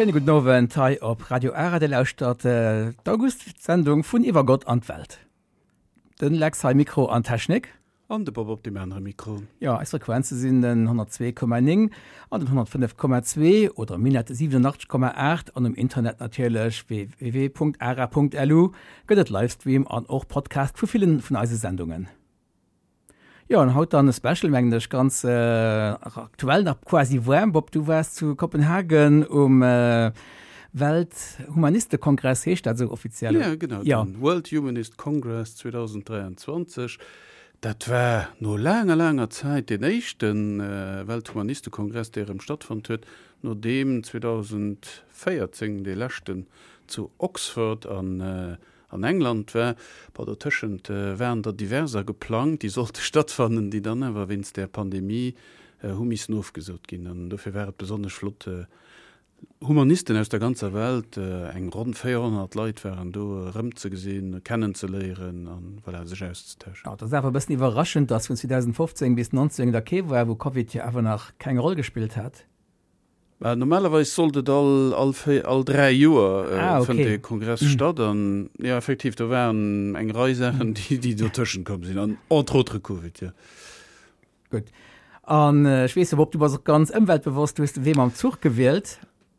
Schéine gudden Owend hei op Radio Ara. Dir lauschtert d'August-Sendung vun Iwwer Gott an d'Welt. Den Lex hei Mikro an Technik. An de Bob op deem anere Mikro. Jo, eis Frequenze sinn den 102,9 an den 105,2 oder Minett 87,8 an um Internet natierlech www.ara.lu gëtt et Livestream an och Podcast vu villen vun eise Sendungen. Jo, an haut dann e Special, mengen ech, ganz aktuell nach quasi waarm. Bob, du waars zu Kopenhagen um Welthumanistekongress, heescht dat esou offiziell? Ja, genau, ja. den World Humanist Congress 2023. Dat war no laanger, laanger Zäit deen éischte Welthumanistekongress, dee erëm stattfonnt huet, nodeem 2014 dee leschten zu Oxford an an England war. Bon, dotëschent waren der diverser geplangt, déi sollte stattfannen, déi dann awer wéinst där Pandemie hu missen ofgesot ginn. An dofir war et besonnesch flott, Humanisten aus der ganzer Welt, eng ronn 400 Leit waren do, erëmzegesinn, kennenzeléieren an, voilà, sech auszetauschen. Jo, et ass awer e bëssen iwwerraschend, dass vun 2015 bis 19 da kee war, wou Covid jo awer nach keng Roll gespillt hat. Bah, normalerweis sollt et all, all, all 3 Joer äh, ah, okay. fënnt de Kongress mm. statt an ja effektiv do waren eng Rei Saachen, déi, déi dotëschent komm sinn an entre autres Covid ja. Gutt. An äh, ech weess op du bass och ganz ëmweltbewosst, du hues de Wee mam Zuch gewielt.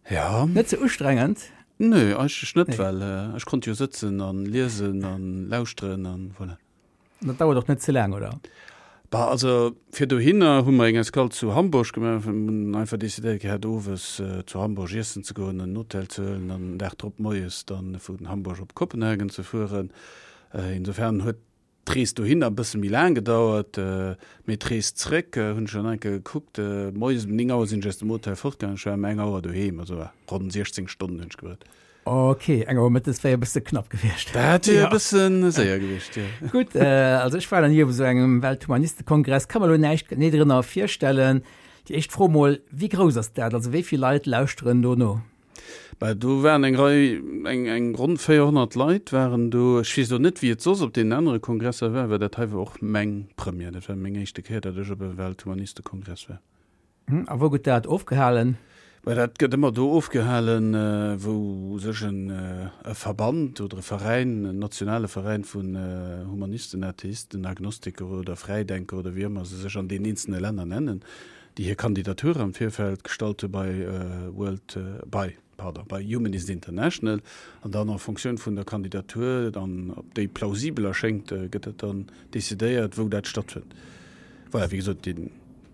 Ja. Net ze ustrengend? Nö, eigentlech net, nee. well äh, ech konnt jo sëtzen an liesen an lauschteren an voilà. Dat dauert och net ze laang, oder? Bah, also fir dohinner hu mer eng Escale zu Hamburg gemaach. Mir hunn einfach decidéiert gehat, owes zu Hamburg iessen ze goen, en Hotel ze huelen an den Dag drop moies dann vun Hamburg op Kopenhagen ze fueren. Insofern huet d'Rees dohinner e bësse méi laang gedauert, mee d'Rees zréck hunn ech dann eng Kéier gekuckt, moies um 9 Auer sinn ech aus dem Hotel fortgaangen, ech war ëm eng Auer doheem, also ronn 16 Stonnen hunn ech gebraucht. Ok, eng Auer mëttes wär jo e bësse knapp gewiescht. Dat wier e bësse séier gewiescht, jo. Gutt, also ech war nach ni op esou engem Welthumanistekongress, ka mer elo näischt genee drënner virstellen. Déi éischt Fro mol, Wéi grouss ass dat? Also wéi vill Leit lauschteren do no? Bah, do waren eng Rei, eng, eng ronn 400 Leit waren do. Ech weess elo net, wéi et soss op deenen anere Kongresser war, well dat hei war och meng Première. Dat war meng éischte Kéier, datt ech op e Welthumanistekongress war. A wou gëtt dat ofgehalen? Mä dat gëtt ëmmer do ofgehalen, wou u sech en e Verband oder e Veräin, en nationale Veräin vun Humanisten, Atheisten, Agnostiker oder Fräidenker oder wéi ëmmer se sech an deenen eenzelne Länner nennen, déi hir Kandidatur am Virfeld gestallt hu bei World, bei, pardon, bei Humanist International. An dann en Fonctioun vun der Kandidatur, dann ob déi plausibel erschéngt, gëtt dat dann decidéiert, wou dat stattfënnt. Voilà, wéi gesot, deen,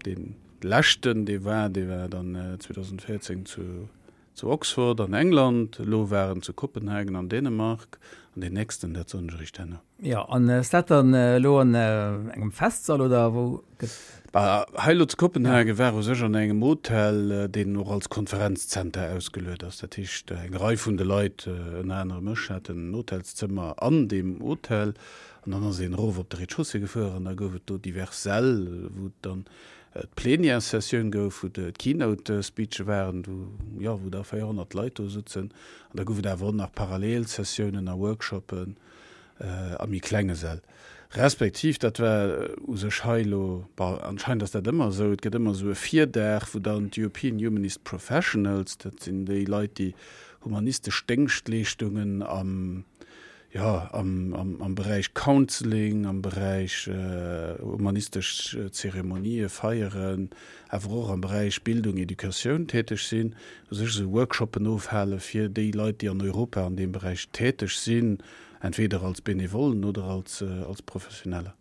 deen leschten, dee war, dee war dann 2014 zu, zu Oxford an England, elo war en zu Kopenhagen an Dänemark an deen nächsten, dat soen ech eréischt herno. Jo, an ass dat dann elo an engem Festsall oder wou gëtt? Bah, hei elo zu Kopenhagen war u sech an engem Hotel, deen och als Konferenzzenter ausgeluet ass. Dat heescht, eng Rei vun de Leit, ënner anerem ech, haten en Hotelszëmmer an deem Hotel. An dann ass een erof op de Rez-de-chaussée gefuer an da gouf et do divers Säll, wou et dann d'Plenièressessioun gouf, wou d'Keynote-Speeche waren, wou, jo, wou da 400 Leit do sutzen. An da gouf et awer och nach Parallelsessiounen a Workshoppen a méi klenge Säll. Respektiv, dat war u sech hei elo, bon, anscheinend ass dat ëmmer esou, et gëtt ëmmer esou e Virdag, wou dann d'European Humanist Professionals, dat sinn déi Leit, déi humanistesch Déngschtleeschtungen am, jo, am Beräich Counseling, am Beräich humanistesch Zeremonië feieren, awer och am Beräich Bildung, Educatioun täteg sinn, u sech esou Workshoppen ofhale fir déi Leit, déi an Europa an deem Beräich täteg sinn, entweder als Benevollen oder als Professioneller.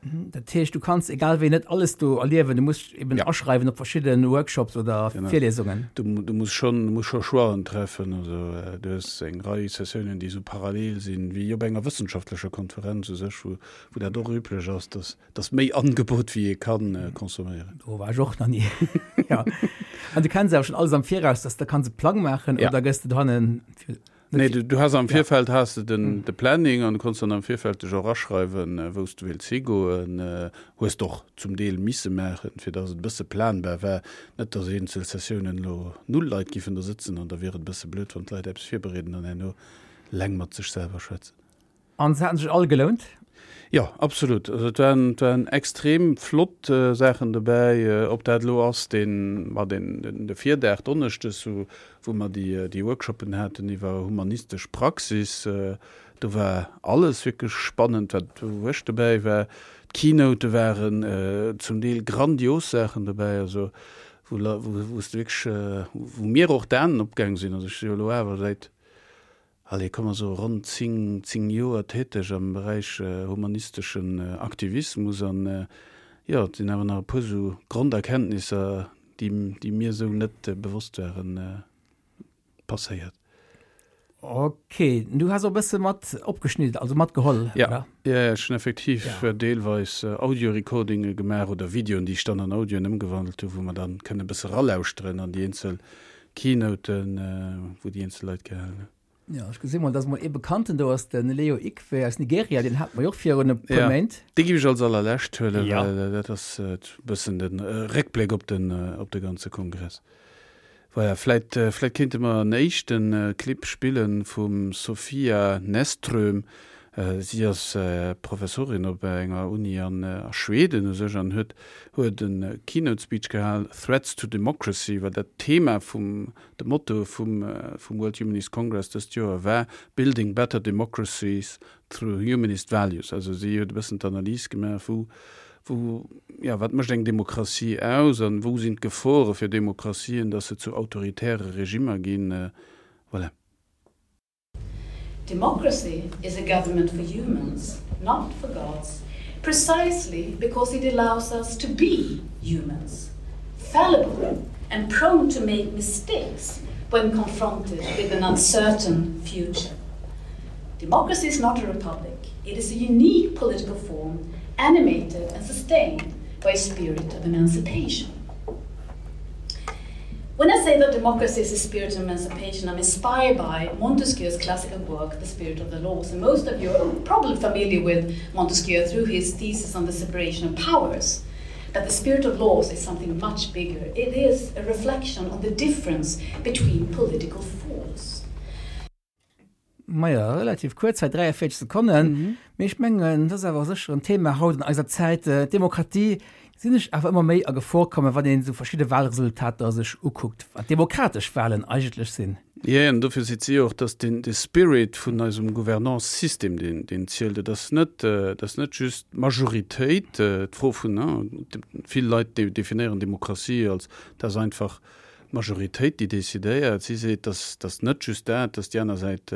Dat heescht, du kanns egal wéi net alles do erliewen, du muss eben ja. aschreiwen op verschidde Workshops oder genau. Virlesungen. Du, du muss schon, du muss scho Choixen treffen, also äh, du hues eng Rei Sessiounen, déi sou parallel sinn, wéi op enger wëssenschaftlecher Konferenz u sech, wou, wou dat och üblech ass, dass, dass méi Angebot wéi ee kann äh, consomméieren. Do war ech och nach nie. ja. An du kenns awer schon alles am Viraus, dass du kanns e Plang maachen ja. oder gëss du dohannen fir Nee, du, du has am Virfeld has de den, de Planning an du konns dann am Virfeld dech och aschreiwen, wou s du wéilts higoen. Hues de och zum Deel misse maachen, fir datt et e bësse planbar war. Net, datt eenzel Sessiounen elo null Leit giffen do sëtzen an da wier et e bësse blöd, wann d'Leit eppes virbereeden an herno leng mat sech selwer schwätzen. An se haten sech all gelount? Jo, absolut. Also et waren, et waren extrem flott Saachen dobäi. Ob dat elo ass deen, ma deen, den, de Virdag donneschdes, wou, wou mer déi, déi Workshoppen haten iwwer humanistesch Praxis, do war alles wierklech spannend, wat, wou ech dobäi war. D'Keynote waren zum Deel grandios Saachen dobäi, also wou, wou s de wierklech, wou mir och d'Aen opgaang sinn. Also ech si jo elo awer säit Allez, komm mer soe ronn 10, 10 Joer täteg am Beräich humanisteschen Aktivismus an, jo, et sinn awer nach e puer esou Gronderkenntnisser, déi, déi mir esou net bewosst waren, passéiert. Ok, du has och e bësse mat opgeschnidden, also matgeholl, oder? Jo, jo, ech hunn effektiv deelweis Audio-Recordinge gemaach oder Videoen, déi ech dann an Audioen ëmgewandelt hunn, wou mer dann kënne e bësse ralauschteren an déi eenzel Keynoten, wou déi eenzel Leit gehalen hunn. Jo, ech gesi mol, dass mol ee Bekannten do ass, de Leo Ikwe aus Nigeria, deen hate mer jo och virun e puer Méint. Dee géif ech als allerlescht huelen, well dat ass e bëssen de Réckbléck op den, op de ganze Kongress. Voilà, vläit, vläit kéinte mer en éischte Clip spille vum Sofia Näsström. Si ass Professorin op enger Uni an a Schweden u sech an huet huet e Keynote Speech gehal, Threats to Democracy, well dat d'Thema vum, de Motto vum vum World Humanist Congress dëst Joer war, Building better democracies through humanist values. Also si huet e bëssen d'Analys gemaach, wou wou, jo, wat mécht eng Demokratie aus an wou sinn d'Gefore fir Demokratien, datt se zu autoritäre Regimmer ginn. Voilà. Democracy is a government for humans, not for gods, precisely because it allows us to be humans, fallible and prone to make mistakes when confronted with an uncertain future. Democracy is not a republic. It is a unique political form animated and sustained by a spirit of emancipation. When I say that democracy is a spirit of emancipation, I'm inspired by Montesquieu's classical work, The Spirit of the Laws. And most of you are probably familiar with Montesquieu through his thesis on the separation of powers. But the spirit of laws is something much bigger. It is a reflection on the difference between political force. Maja, relativ kuerz hei, 43 Sekonnen. Mee ech mengen, dat ass awer sécher en Thema haut an eiser Zäit. D'Demokratie gesinn ech awer ëmmer méi a Gefor kommen, wann een esou verschidde Wahlresultater sech ukuckt, wat demokratesch Wahlen eigentlech sinn. Jee, an dofir seet si och, dass den, de Spirit vun eisem Gouvernance-System, deen, deen zielt. Et ass net, et ass net just d'Majoritéit, d'Fro vun, vill Leit definéieren Demokratie als, dat ass einfach D'Majoritéit, déi decidéiert, si seet, dass dass net just dat, dass déi aner Säit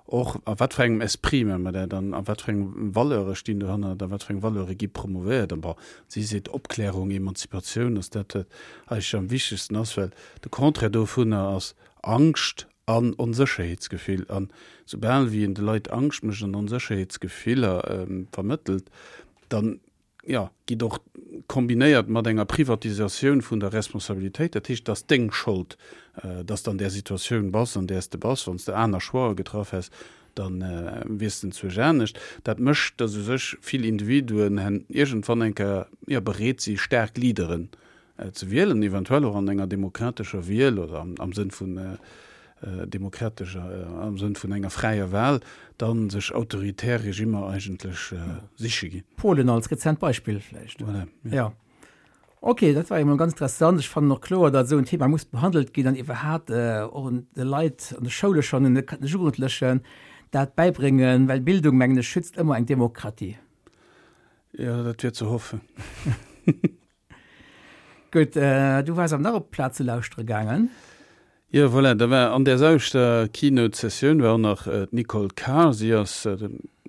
och, a wat fir engem Esprit maache mer dat an a wat fir eng Valeure stinn dohannert a wat fir eng Valeure gi promouvéiert. An bon, si seet, Opklärung, Emanzipatioun ass dat, wat eigentlech am wichtegsten ass, well de Contraire dovunner ass Angscht an Onsécherheetsgefill. An soubal wéi een de Leit Angscht mécht an Onsécherheetsgefiller vermëttelt, dann jo, gitt och kombinéiert mat enger Privatisatioun vun der Responsabilitéit, dat heescht, et ass deng Schold, dass de an där Situatioun bass, an där s de bass, wann s de aner Choixë getraff häss, da wiers de enzwousch anescht. Dat mécht, dass u sech vill Individuen iergendwann eng Kéier, jo, bereet si staark Leaderen ze wielen, eventuell och an enger demokratescher Wiel oder am Sënn vun demokratescher, am Sënn vun enger fräier Wahl, da sech autoritär Regimmer eigentlech siche ginn. Polen als rezent Beispill vläicht. Voilà, ja. Ja. Ok, dat war jo mol ganz interessant. Ech fannen och kloer, datt esou en Thema muss behandelt ginn an iwwerhat och de Leit an de Schoule schonn, de Jugendlechen dat bäibréngen, well Bildung, mengen ech, schützt ëmmer eng Demokratie. Jo, dat wier ze hoffen. Gutt, du waars awer nach op d'Plaz ze lauschtere gaangen. Jo, voilà, da war an där selwechter Keynote-Sessioun war och nach d'Nicole Carr. Si ass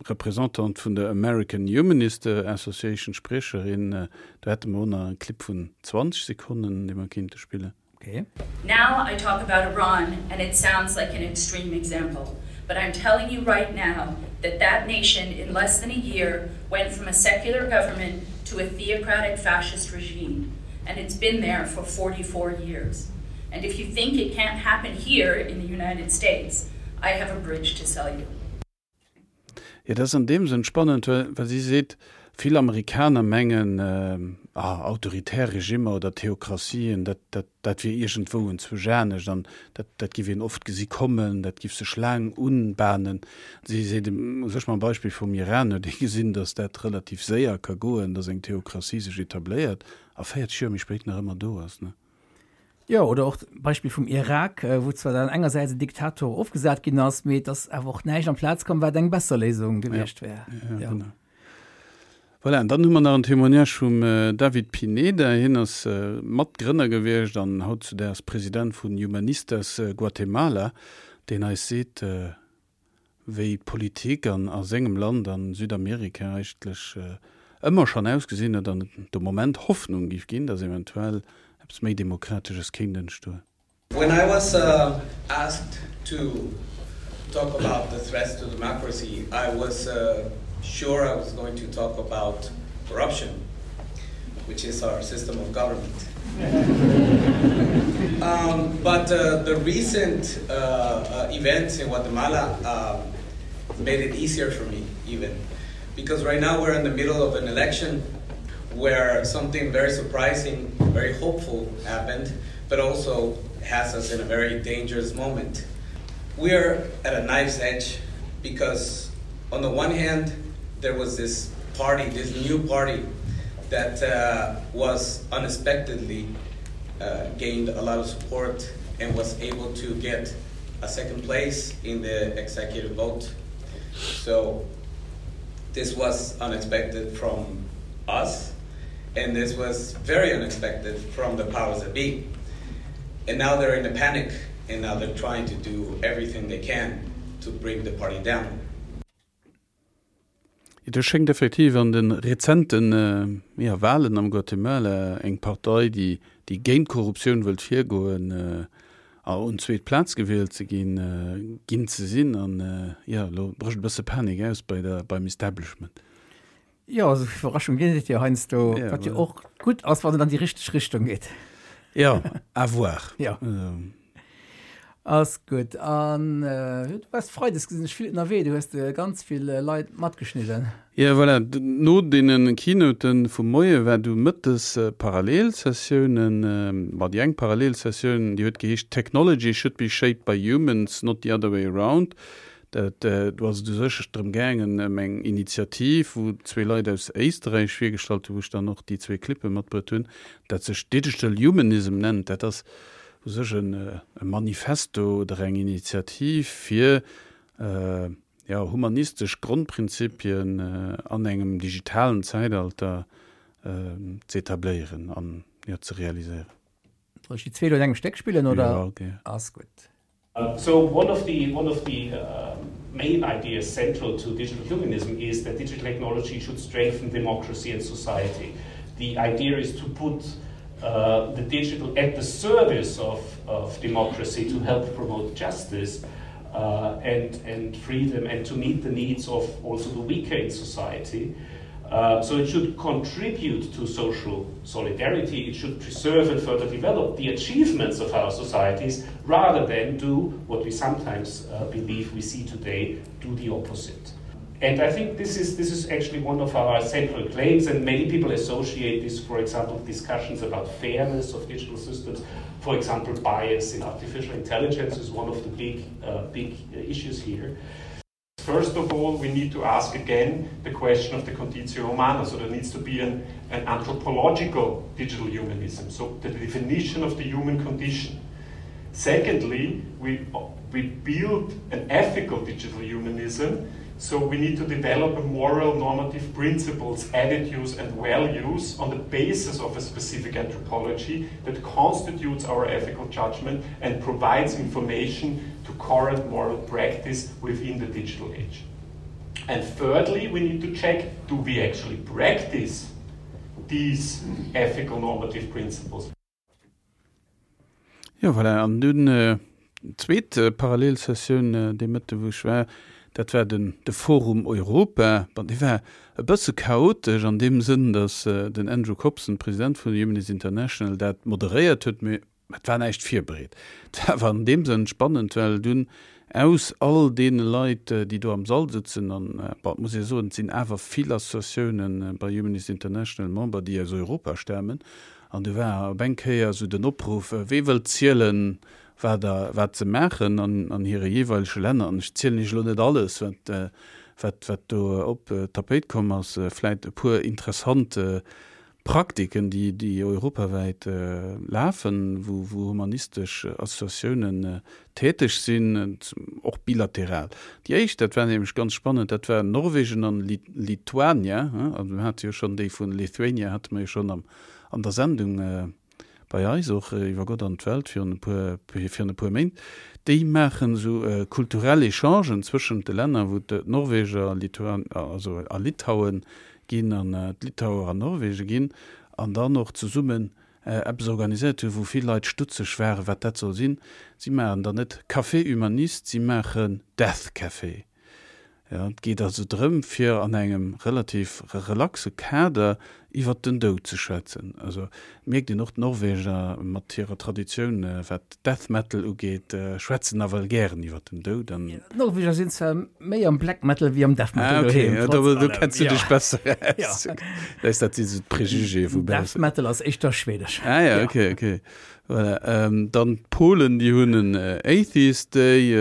Representante vun der American Humanist Association, Spriecherin. Do hätte mer och nach e Clip vun 20 Sekonnen, dee mer kéinte spillen. Okay. Now I talk about Iran and it sounds like an extreme example, but I'm telling you right now that that nation in less than a year went from a secular government to a theocratic fascist regime and it's been there for 44 years. And if you think it can't happen here in the United States, I have a bridge to sell you. Jo, dat ass an deem Sënn spannend, well si seet, Vill Amerikaner mengen, ah, autoritär Regimmer oder Theokratien, dat, dat, dat wier iergendwou enzwousch anescht an dat, dat giff een oft gesi kommen, dat giff sech laang unbahnen. Si seet, u sech mam Beispill vum Iran huet ee gesinn, datt dat relativ séier ka goen, datt eng Theokratie sech etabléiert a 40 Joer méi spéit nach ëmmer do ass. Jo, oder och d'Beispill vum Irak, wou zwar dann engersäits en Diktator ofgesat ginn ass, mee et ass awer och näischt amplaz komm, wat eng besser Léisung gewiescht wär. Ja, genau. Voilà, an dann hu mer nach en Témoignage vum David Pineda. Hien ass Matgrënner gewiescht an hautzudaags President vun Humanistas Guatemala, deen eis seet, wéi d'Politik an a sengem Land an Südamerika eigentlech ëmmer schonn ausgesinn huet an et de Moment Hoffnung géif ginn, datt eventuell eppes méi Demokratesches kéint entstoen. When I was asked to talk about the threats to democracy, I was sure I was going to talk about corruption, which is our system of government. um, but uh, the recent uh, uh, events in Guatemala um, made it easier for me, even. Because right now we're in the middle of an election where something very surprising, very hopeful happened, but also has us in a very dangerous moment. We are at a knife's edge because, on the one hand, there was this party, this new party, that uh, was unexpectedly uh, gained a lot of support and was able to get a second place in the executive vote. So this was unexpected from us, and this was very unexpected from the powers that be. And now they're in a panic, and now they're trying to do everything they can to bring the party down. Et schéngt effektiv an de rezente Walen am Guatemala eng Partei, déi géint d'Korruptioun wëllt virgoen, a un zweet Plaz gewielt ze ginn, ginn ze sinn. An jo, elo brécht e bësse Panik aus bei der, beim Establishment. Jo, esou Iwwerraschung ginn et jo heiansdo, wat jo och gutt ass, wann et an déi richteg Richtung geet. Jo, à voir. Jo. Ass gutt. An du waars freides, gesinn ech, vill ënnerwee. Du hues ganz vill Leit matgeschnidden. Jo, voilà. No deene Keynoten vum Moie war du mëttes Parallelsessiounen. Bon, déi eng Parallelsessioun, déi huet geheescht Technology should be shaped by humans, not the other way around. Dat, do ass et u sech drëm gaangen, ëm eng Initiativ, wou zwee Leit aus Éisterräich virgestallt hunn, wou ech dann och déi zwee Clippe matbruet hunn, dat sech Digital Humanism nennt. Dat ass u sech e Manifesto oder eng Initiativ fir jo humanistesch Grondprinzipien an engem digitalen Zäitalter ze etabléieren an jo ze realiséieren. Soll ech déi zwee elo an engem Stéck spillen oder? Jo, gär. Ass gutt. So one of the one of the uh, main ideas central to digital humanism is that digital technology should strengthen democracy and society. The idea is to put uh, the digital at the service of, of democracy to help promote justice uh, and, and freedom and to meet the needs of also the weaker in society. Uh, so it should contribute to social solidarity, it should preserve and further develop the achievements of our societies rather than do what we sometimes uh, believe we see today, do the opposite. And I think this is, this is actually one of our central claims, and many people associate this, for example, discussions about fairness of digital systems. For example, bias in artificial intelligence is one of the big, uh, big issues here. First of all, we need to ask again the question of the conditio humana. So there needs to be an, an anthropological digital humanism, so the definition of the human condition. Secondly, we, we build an ethical digital humanism, so we need to develop a moral normative principles, attitudes, and values on the basis of a specific anthropology that constitutes our ethical judgment and provides information to current moral practice within the digital age. And thirdly, we need to check do we actually practice these ethical normative principles? Jo, voilà, an dunn d'zweet Parallelsessioun dee Mëtte wou ech war, dat war den de Forum Europa. Bon, dee war e bësse chaotesch an deem Sënn, datt den Andrew Copson, President vun Humanist International, dat moderéiert huet, mee et war näischt virbereet. Et war awer an deem Sënn spannend, well dunn. Aus all deene Leit, déi do am Sall sëtzen, an, bon, et muss ee soen, et sinn awer vill Associatiounen bei Humanist International Member, déi aus Europa stamen, an du war op eng Kéier esou den Opruff, Wee wëllt zielen, wat a wat se maachen an an hire jeeweilege Länner? An ech zielen Iech elo net alles, wat, wat, wat do op d'Tapéit komm ass, vläit e puer interessant Praktiken, déi, déi europawäit lafen, wou, wou humanistesch Associatiounen täteg sinn, och bilateral. Déi éischt, dat war nämlech ganz spannend, dat war Norwegen an Lituania, also mir hate jo schonn déi vun Lithuania hate mer jo schonn am, an der Sendung bei eis och iwwer Gott an d'Welt virun e puer, virun e puer Méint. Déi maachen esou kulturell Echangen zwëschent de Länner, wou d'Norweger, Lituan, also a Litauen ginn an d'Litauer an Norwegen ginn an dann och zesummen eppes organiséiert hunn, wou vill Leit stutzeg waren, wat dat soll sinn. Si maachen dann net Café Humaniste, si maachen Death Café. Jo, et geet also drëm, fir an engem relativ relaxe Kader iwwert den Doud ze schwätzen. Also et mierkt een och, d'Norweger mat hirer Traditioun, wat Death Metal ugeet, schwätzen nawell gären iwwert den Doud an. D'Norweger sinn zwar méi am Black Metal wéi am Death Metal doheem. Ah, okay, do kenns du dech besser aus. Läs dat si sou d'Prejugéë vu baussen. Death Metal ass éischter schwedesch. Ah ja, okay, okay. Voilà. Dann d'Polen, déi hunn en Atheist Day,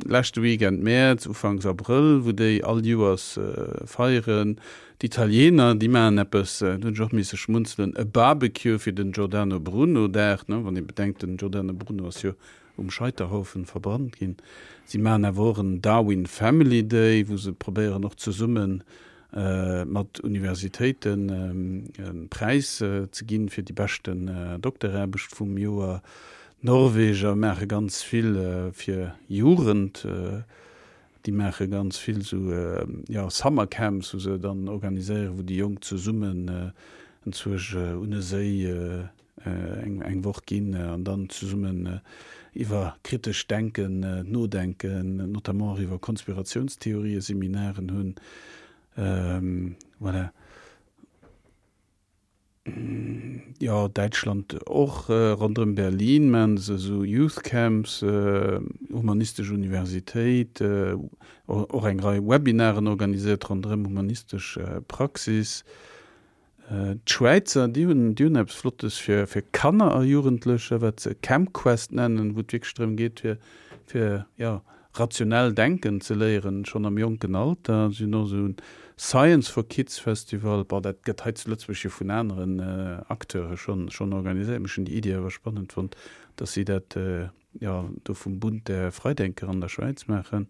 leschte Weekend Mäerz, Ufanks Abrëll, wou déi all Joers feieren. D'Italiener, déi maachen eppes, do hunn ech och misse schmunzelen, e Barbecue fir den Giordano Bruno Dag, ne, wann ee bedenkt, den Giordano Bruno ass jo um Scheiterhaufen verbrannt ginn. Si maachen awer och en Darwin Family Day, wou se probéieren och zesumme mat Universitéiten e Präis ze ginn fir déi beschten Dokteraarbecht vum Joer. D'Norweger maache ganz vill fir Jugend. Déi maache ganz vill esou, jo, Summer Camps, wou se dann organiséieren, wou déi Jonk zesummen enzwousch un e Séi eng Woch ginn an dann zesummen iwwer kritescht Denken nodenken, notamment och iwwer Konspiratiounstheorië Seminaren hunn. Voilà. Jo, Däitschland och, ronderëm Berlin maachen se esou Youth Camps, humanistesch Universitéit, och eng Rei Webinaren organiséiert ronderëm humanistesch Praxis. D'Schwäizer, déi hunn, déi hunn eppes Flottes fir, fir Kanner a Jugendlecher, wat se Camp Quest nennen, wou et wierklech drëm geet, fir, fir, jo, rationell denken ze léieren, schonn am jonken Alter. Si hunn och esou en Science for Kids Festival. Bon, dat gëtt hei zu Lëtzebuerg jo vun aneren Acteure schonn, schonn organiséiert. Mee ech hunn déi Iddi awer spannend fonnt, dass si dat, jo, do vum Bund der Freidenker an der Schwäiz maachen.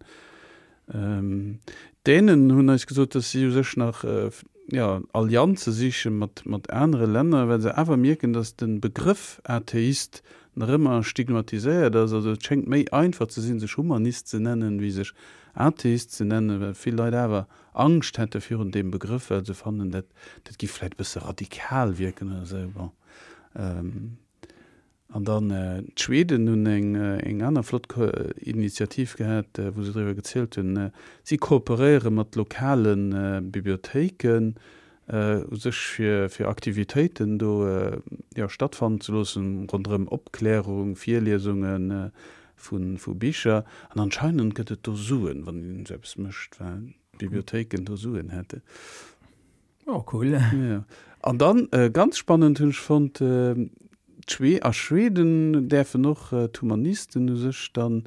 D'Dänen hunn eis gesot, datt si u sech nach jo, Allianze siche mat, mat anere Länner, well se awer mierken, datt de Begrëff Atheist nach ëmmer stigmatiséiert ass. Also et schéngt méi einfach ze sinn, sech Humanist ze nennen, wéi sech Atheist ze nennen, well vill Leit awer Angscht hätte virun deem Begrëff, well se fannen, dat, dat giff vläicht e bësse radikal wierken oder esou. Bon. An dann d'Schweden hunn eng aner flott Initiativ gehat, wou se driwwer gezielt hunn. Si kooperéiere mat lokale Bibliothéiken u sech fir fir Aktivitéiten do jo stattfannen ze loossen, ronderëm Opklärung, Virliesunge vu Bicher. An anscheinend gëtt et do Suen, wann een esou eppes mécht, well d'Bibliothéiken do Suen hätten. Oh, cool. Ja. An dann, ganz spannend hunn ech fonnt, d'Schwe a Schweden däerfen och d'Humanisten u sech dann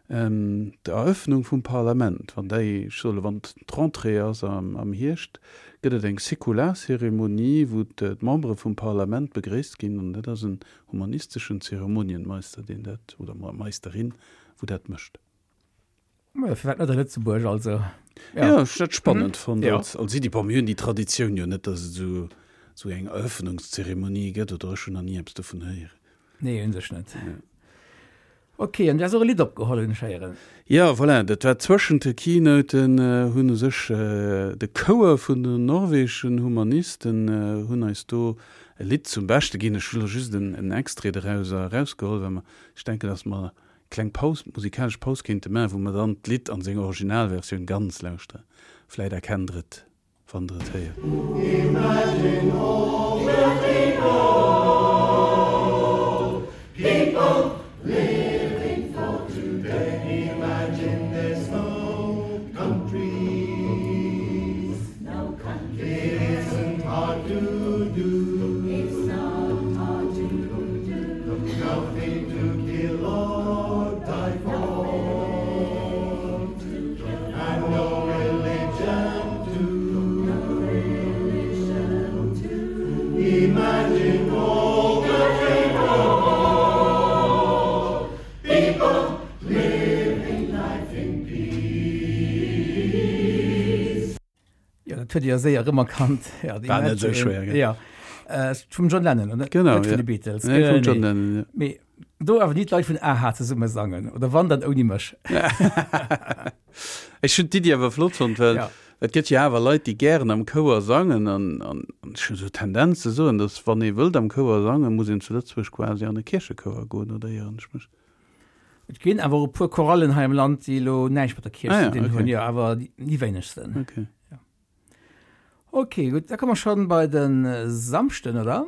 d'Eröffnung vum Parlament, wann déi, ech soe lo, wann d'Rentrée ass am Hierscht, gëtt et eng säkular Zeremonie, wou d'Membere vum Parlament begréisst ginn. An dat ass en humanisteschen Zeremonienmeister, deen dat, oder Meisterin, wou dat mécht. Ja, firwat net a Lëtzebuerg also? Ja, ja ech dat spannend mhm. fonnt ja. als, als Iddi. Bon, mir hunn déi Traditioun jo net, dass et esou esou eng Eröffnungszeremonie gëtt oder ech hunn nach ni eppes dovun héieren. Nee, un sech net. Ja. Okay, an du has och e Lidd opgeholl, hunn ech héieren. Ja, voilà, dat war zwëschent de Keynoten, äh, hunn u sech äh, de Chouer vun den norwegeschen Humanisten äh, hunn eis do e Lidd zum Beschte ginn. Ech hu lo just en, en Extrait derauser erausgeholl, well mer, ech denken, dass mer Kleng Paus, musikalesch Paus kéinte maachen, wou mer dann d'Lidd an senger Originalversioun ganz lauschteren. Vläit erkennt der et, wann der et héiert. Imagine all the people, people living for today. Imagine all the capable people living life in peace. Jo, dat huet Dir jo séier erëmerkannt. Ja, War net esou schwéier, gell? Ja. Äh, vum John Lennon, oder? Genau, Net vun ja. de Beatles. Nee, vum John Genee. Lennon, ja. Mee do awer ni d'Leit vun a-ha zesumme sangen, oder wann, dann ouni mech. Ech hunn d'Iddi awer flott fonnt, well Ja. et gëtt jo awer Leit, déi gären am Chouer sangen an, an ech hunn esou d'Tendenz ze soen, datt wann ee wëllt am Chouer sangen, muss een zu Lëtzebuerg quasi an e Kierchechouer goen, oder ieren ech mech? Et ginn awer och e puer Chorallen hei am Land, déi elo näischt mat der Kierch Ah ze ja, dinn okay. hunn, jo, awer déi wéinegsten. Okay. Ja. Ok, gutt, da komme mer schonn bei de Samschden, oder?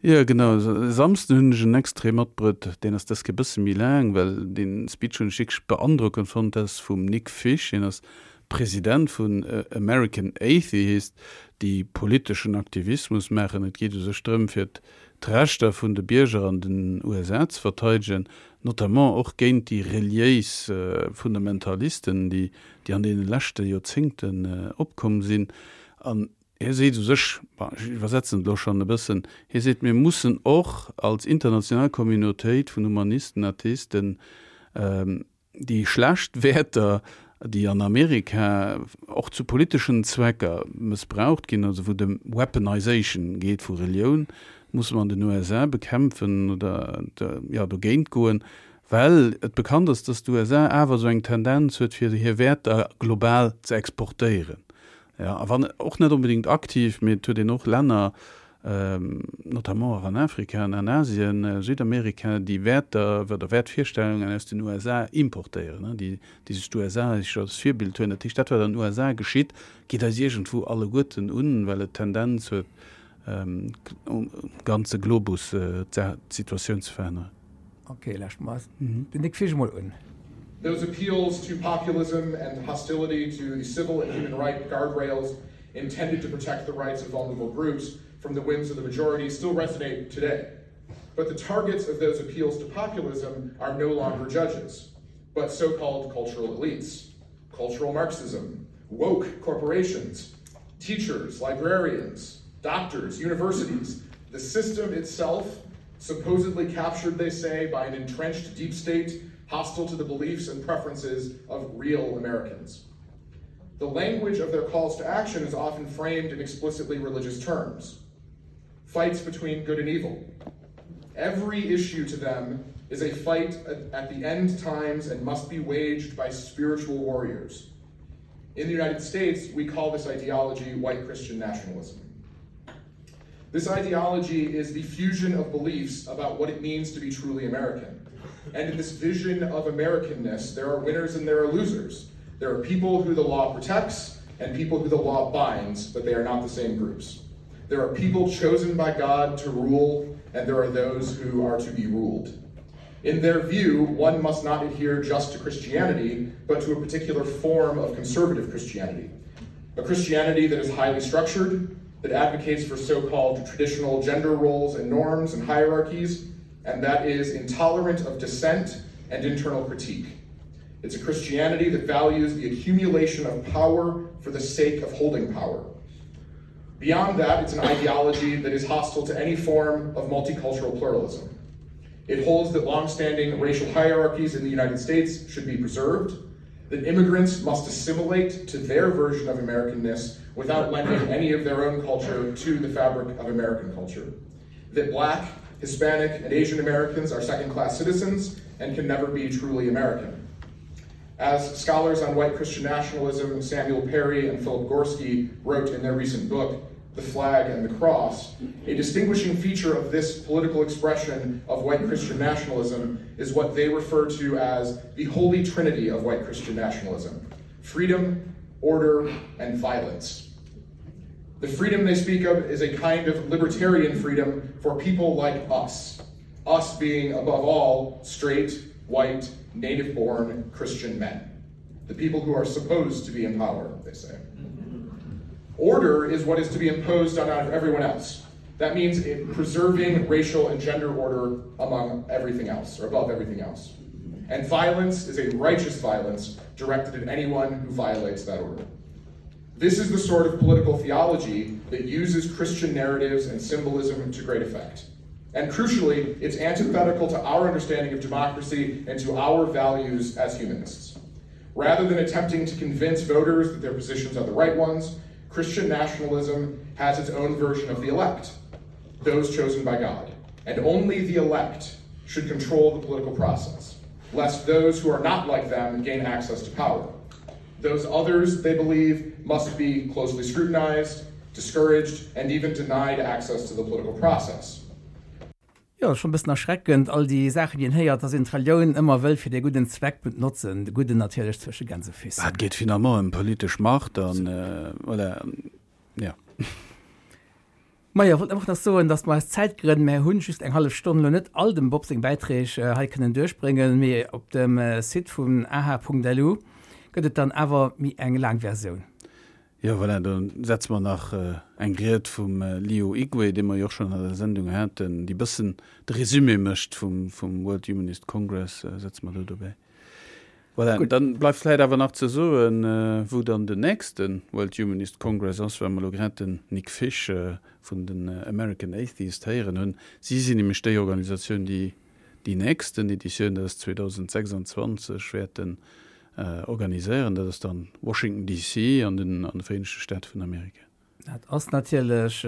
Jo, genau. E Samsden hunn ech en Extrait matbruet, deen ass dës Kéier e bësse méi laang, well dee Speech hunn ech wierklech beandrockend fonnt. Dat ass vum Nick Fish, hien ass President vun American Atheist, déi politeschen Aktivismus maachen. Et geet u sech drëm, fir d'Rechter vun de Bierger an den USA ze verteidegen, notamment och géint déi reliéis Fundamentalisten, déi déi an deene leschte Joerzéngten opkomm sinn. An hie seet u sech, bon, ech iwwersetzen et elo schonn e bëssen, hie seet, mir mussen och als international Communautéit vun Humanisten, Atheisten déi schlecht Wäerter, déi an Amerika och zu politeschen Zwecker mëssbraucht ginn, also wou et ëm Weaponization geet vu Relioun, musse mer an den USA bekämpfen oder, jo, dogéint goen. Well et bekannt ass, dass d'USA awer esou eng Tendenz huet, fir hir Wäerter global ze exportéieren. Jo, a wann och net onbedéngt aktiv, mee et huet een och Länner, notamment och an Afrika an an Asien, Südamerika, déi Wäerter oder Wäertvirstellungen aus den USA importéieren, déi déi sech d'USA als Virbild huelen. Dat heescht, dat wat an den USA geschitt, geet eis iergendwou alleguerten un, well et d'Tendenz huet, um ganze Globus d'Situatioun ze veränneren. Okay, lauscht mer den Nick Fisch emol un. Those appeals to populism and hostility to the civil and human right guardrails intended to protect the rights of vulnerable groups from the whims of the majority still resonate today. But the targets of those appeals to populism are no longer judges, but so-called cultural elites, cultural Marxism, woke corporations, teachers, librarians, doctors, universities, the system itself, supposedly captured, they say, by an entrenched deep state hostile to the beliefs and preferences of real Americans. The language of their calls to action is often framed in explicitly religious terms. Fights between good and evil. Every issue to them is a fight at the end times and must be waged by spiritual warriors. In the United States, we call this ideology white Christian nationalism. This ideology is the fusion of beliefs about what it means to be truly American. And in this vision of Americanness, there are winners and there are losers. There are people who the law protects and people who the law binds, but they are not the same groups. There are people chosen by God to rule, and there are those who are to be ruled. In their view, one must not adhere just to Christianity, but to a particular form of conservative Christianity. A Christianity that is highly structured, that advocates for so-called traditional gender roles and norms and hierarchies, and that is intolerant of dissent and internal critique. It's a Christianity that values the accumulation of power for the sake of holding power. Beyond that, it's an ideology that is hostile to any form of multicultural pluralism. It holds that long-standing racial hierarchies in the United States should be preserved, that immigrants must assimilate to their version of Americanness without lending any of their own culture to the fabric of American culture, that black, Hispanic, and Asian Americans are second-class citizens and can never be truly American. As scholars on white Christian nationalism Samuel Perry and Philip Gorski wrote in their recent book, The Flag and the Cross, a distinguishing feature of this political expression of white Christian nationalism is what they refer to as the holy trinity of white Christian nationalism: freedom, order, and violence. The freedom they speak of is a kind of libertarian freedom for people like us, us being above all straight, white, native-born Christian men, the people who are supposed to be in power, they say. Order is what is to be imposed on everyone else. That means preserving racial and gender order among everything else, or above everything else. And violence is a righteous violence directed at anyone who violates that order. This is the sort of political theology that uses Christian narratives and symbolism to great effect. And crucially, it's antithetical to our understanding of democracy and to our values as humanists. Rather than attempting to convince voters that their positions are the right ones, Christian nationalism has its own version of the elect, those chosen by God. And only the elect should control the political process, lest those who are not like them gain access to power. Those others, they believe, must be closely scrutinized, discouraged, and even denied access to the political process. Jo, schon e bëssen erschreckend, all déi Saachen, déi een héiert, dass een d'Relioun ëmmer wëll fir dee gudden Zweck benotzen, de gudden natierlech zwësche Gänsefüssen. Et geet finalement ëm politesch Macht an voilà, jo. Majo, wollt einfach nach soen, dass mer aus Zäitgrënn, mär hunn just eng hallef Stonn, elo net all dem Bob seng Bäiträg hei kënnen duerchbréngen, mee op dem Site vun aha.lu gëtt et dann awer méi eng laang Versioun. Jo, voilà, do setze mer nach eng Ried vum Leo Igwe, dee mer jo och schonn an der Sendung haten, déi bëssen de Résumé mécht vum World Humanist Congress, setze mer do dobäi. Voilà, Gutt. Dann bleift vläit awer nach ze soen, wou dann den nächste World Humanist Congress ass, well mer elo grad den Nick Fish vun den American Atheists héieren hunn. Si sinn nämlech déi Organisatioun, déi déi nächsten Editioun, dat ass 2026, wäerten organiséieren. Dat ass dann Washington DC an den an de Vereenegte Staate vun Amerika. Dat ass natierlech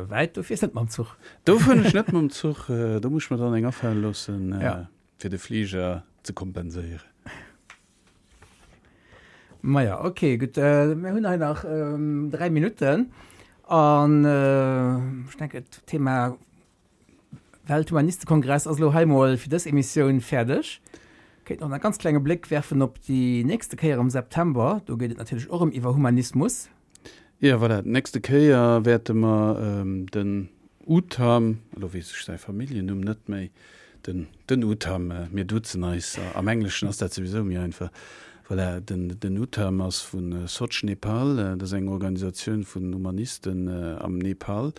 wäit. Do fiers net mam Zuch. Do fueren ech net mam Zuch. Do muss ech mer dann eng afale loossen. Fir de Fliger ze kompenséieren. Maja, ok, gutt. Mir hunn hei nach 3 Minutten an ech denken, d'Thema Welthumanistekongress ass elo hei mol fir dës Emissioun fäerdeg. Kéint nach e ganz klenge Bléck werfen op déi nächste Kéier am September. Do geet et natierlech och erëm iwwer Humanismus. Jo, voilà, d'nächste Kéier wäerte mer den Utam, elo weess ech säi Familljennumm net méi, den, den Utam, mir duzen eis, am Engleschen ass dat souwisou méi einfach, voilà, den, den Utam ass vu Soch Nepal, dat ass eng Organisatioun vun Humanisten am Nepal.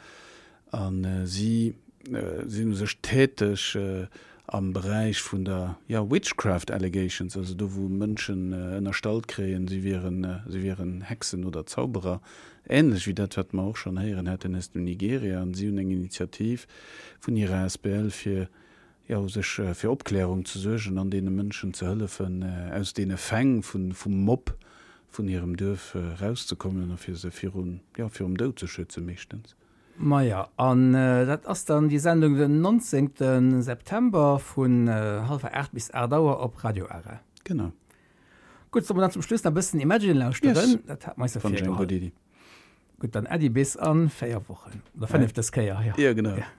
A si sinn u sech täteg am Beräich vun der, jo, witchcraft allegations, also do wou Mënschen ënnerstallt kréien, si wieren, si wieren Hexen oder Zauberer, änlech wéi dat wat mer och schonn héieren haten aus dem Nigeria. An si hunn eng Initiativ vun hirer asbl fir, jo, u sech fir Opklärung ze suergen an deene Mënschen ze hëllefen, aus deene Fäng vun, vum Mob vun hirem Duerf erauszekommen a fir se virun, jo, virum Doud ze schützen meeschtens. Maja, an dat ass dann déi Sendung den 19. September vun hallwer 8 bis 8 Auer op Radio Ara. Genau. Gutt, solle mer dann zum Schluss nach e bëssen Imagine lauschteren? Yes. Dat hat mer eis jo Fand ech eng gutt virgeholl. Iddi. Gutt, dann Äddi bis a 4 Wochen. Oder 5 dës Kéier, jo. Jo, genau. Ja.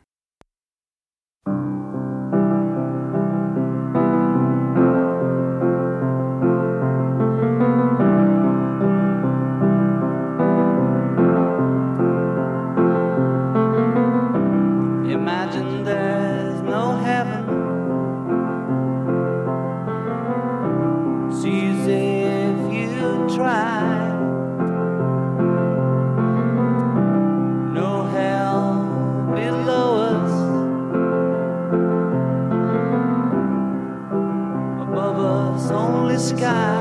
Imagine there's no heaven It's easy if you try No hell below us Above us only sky.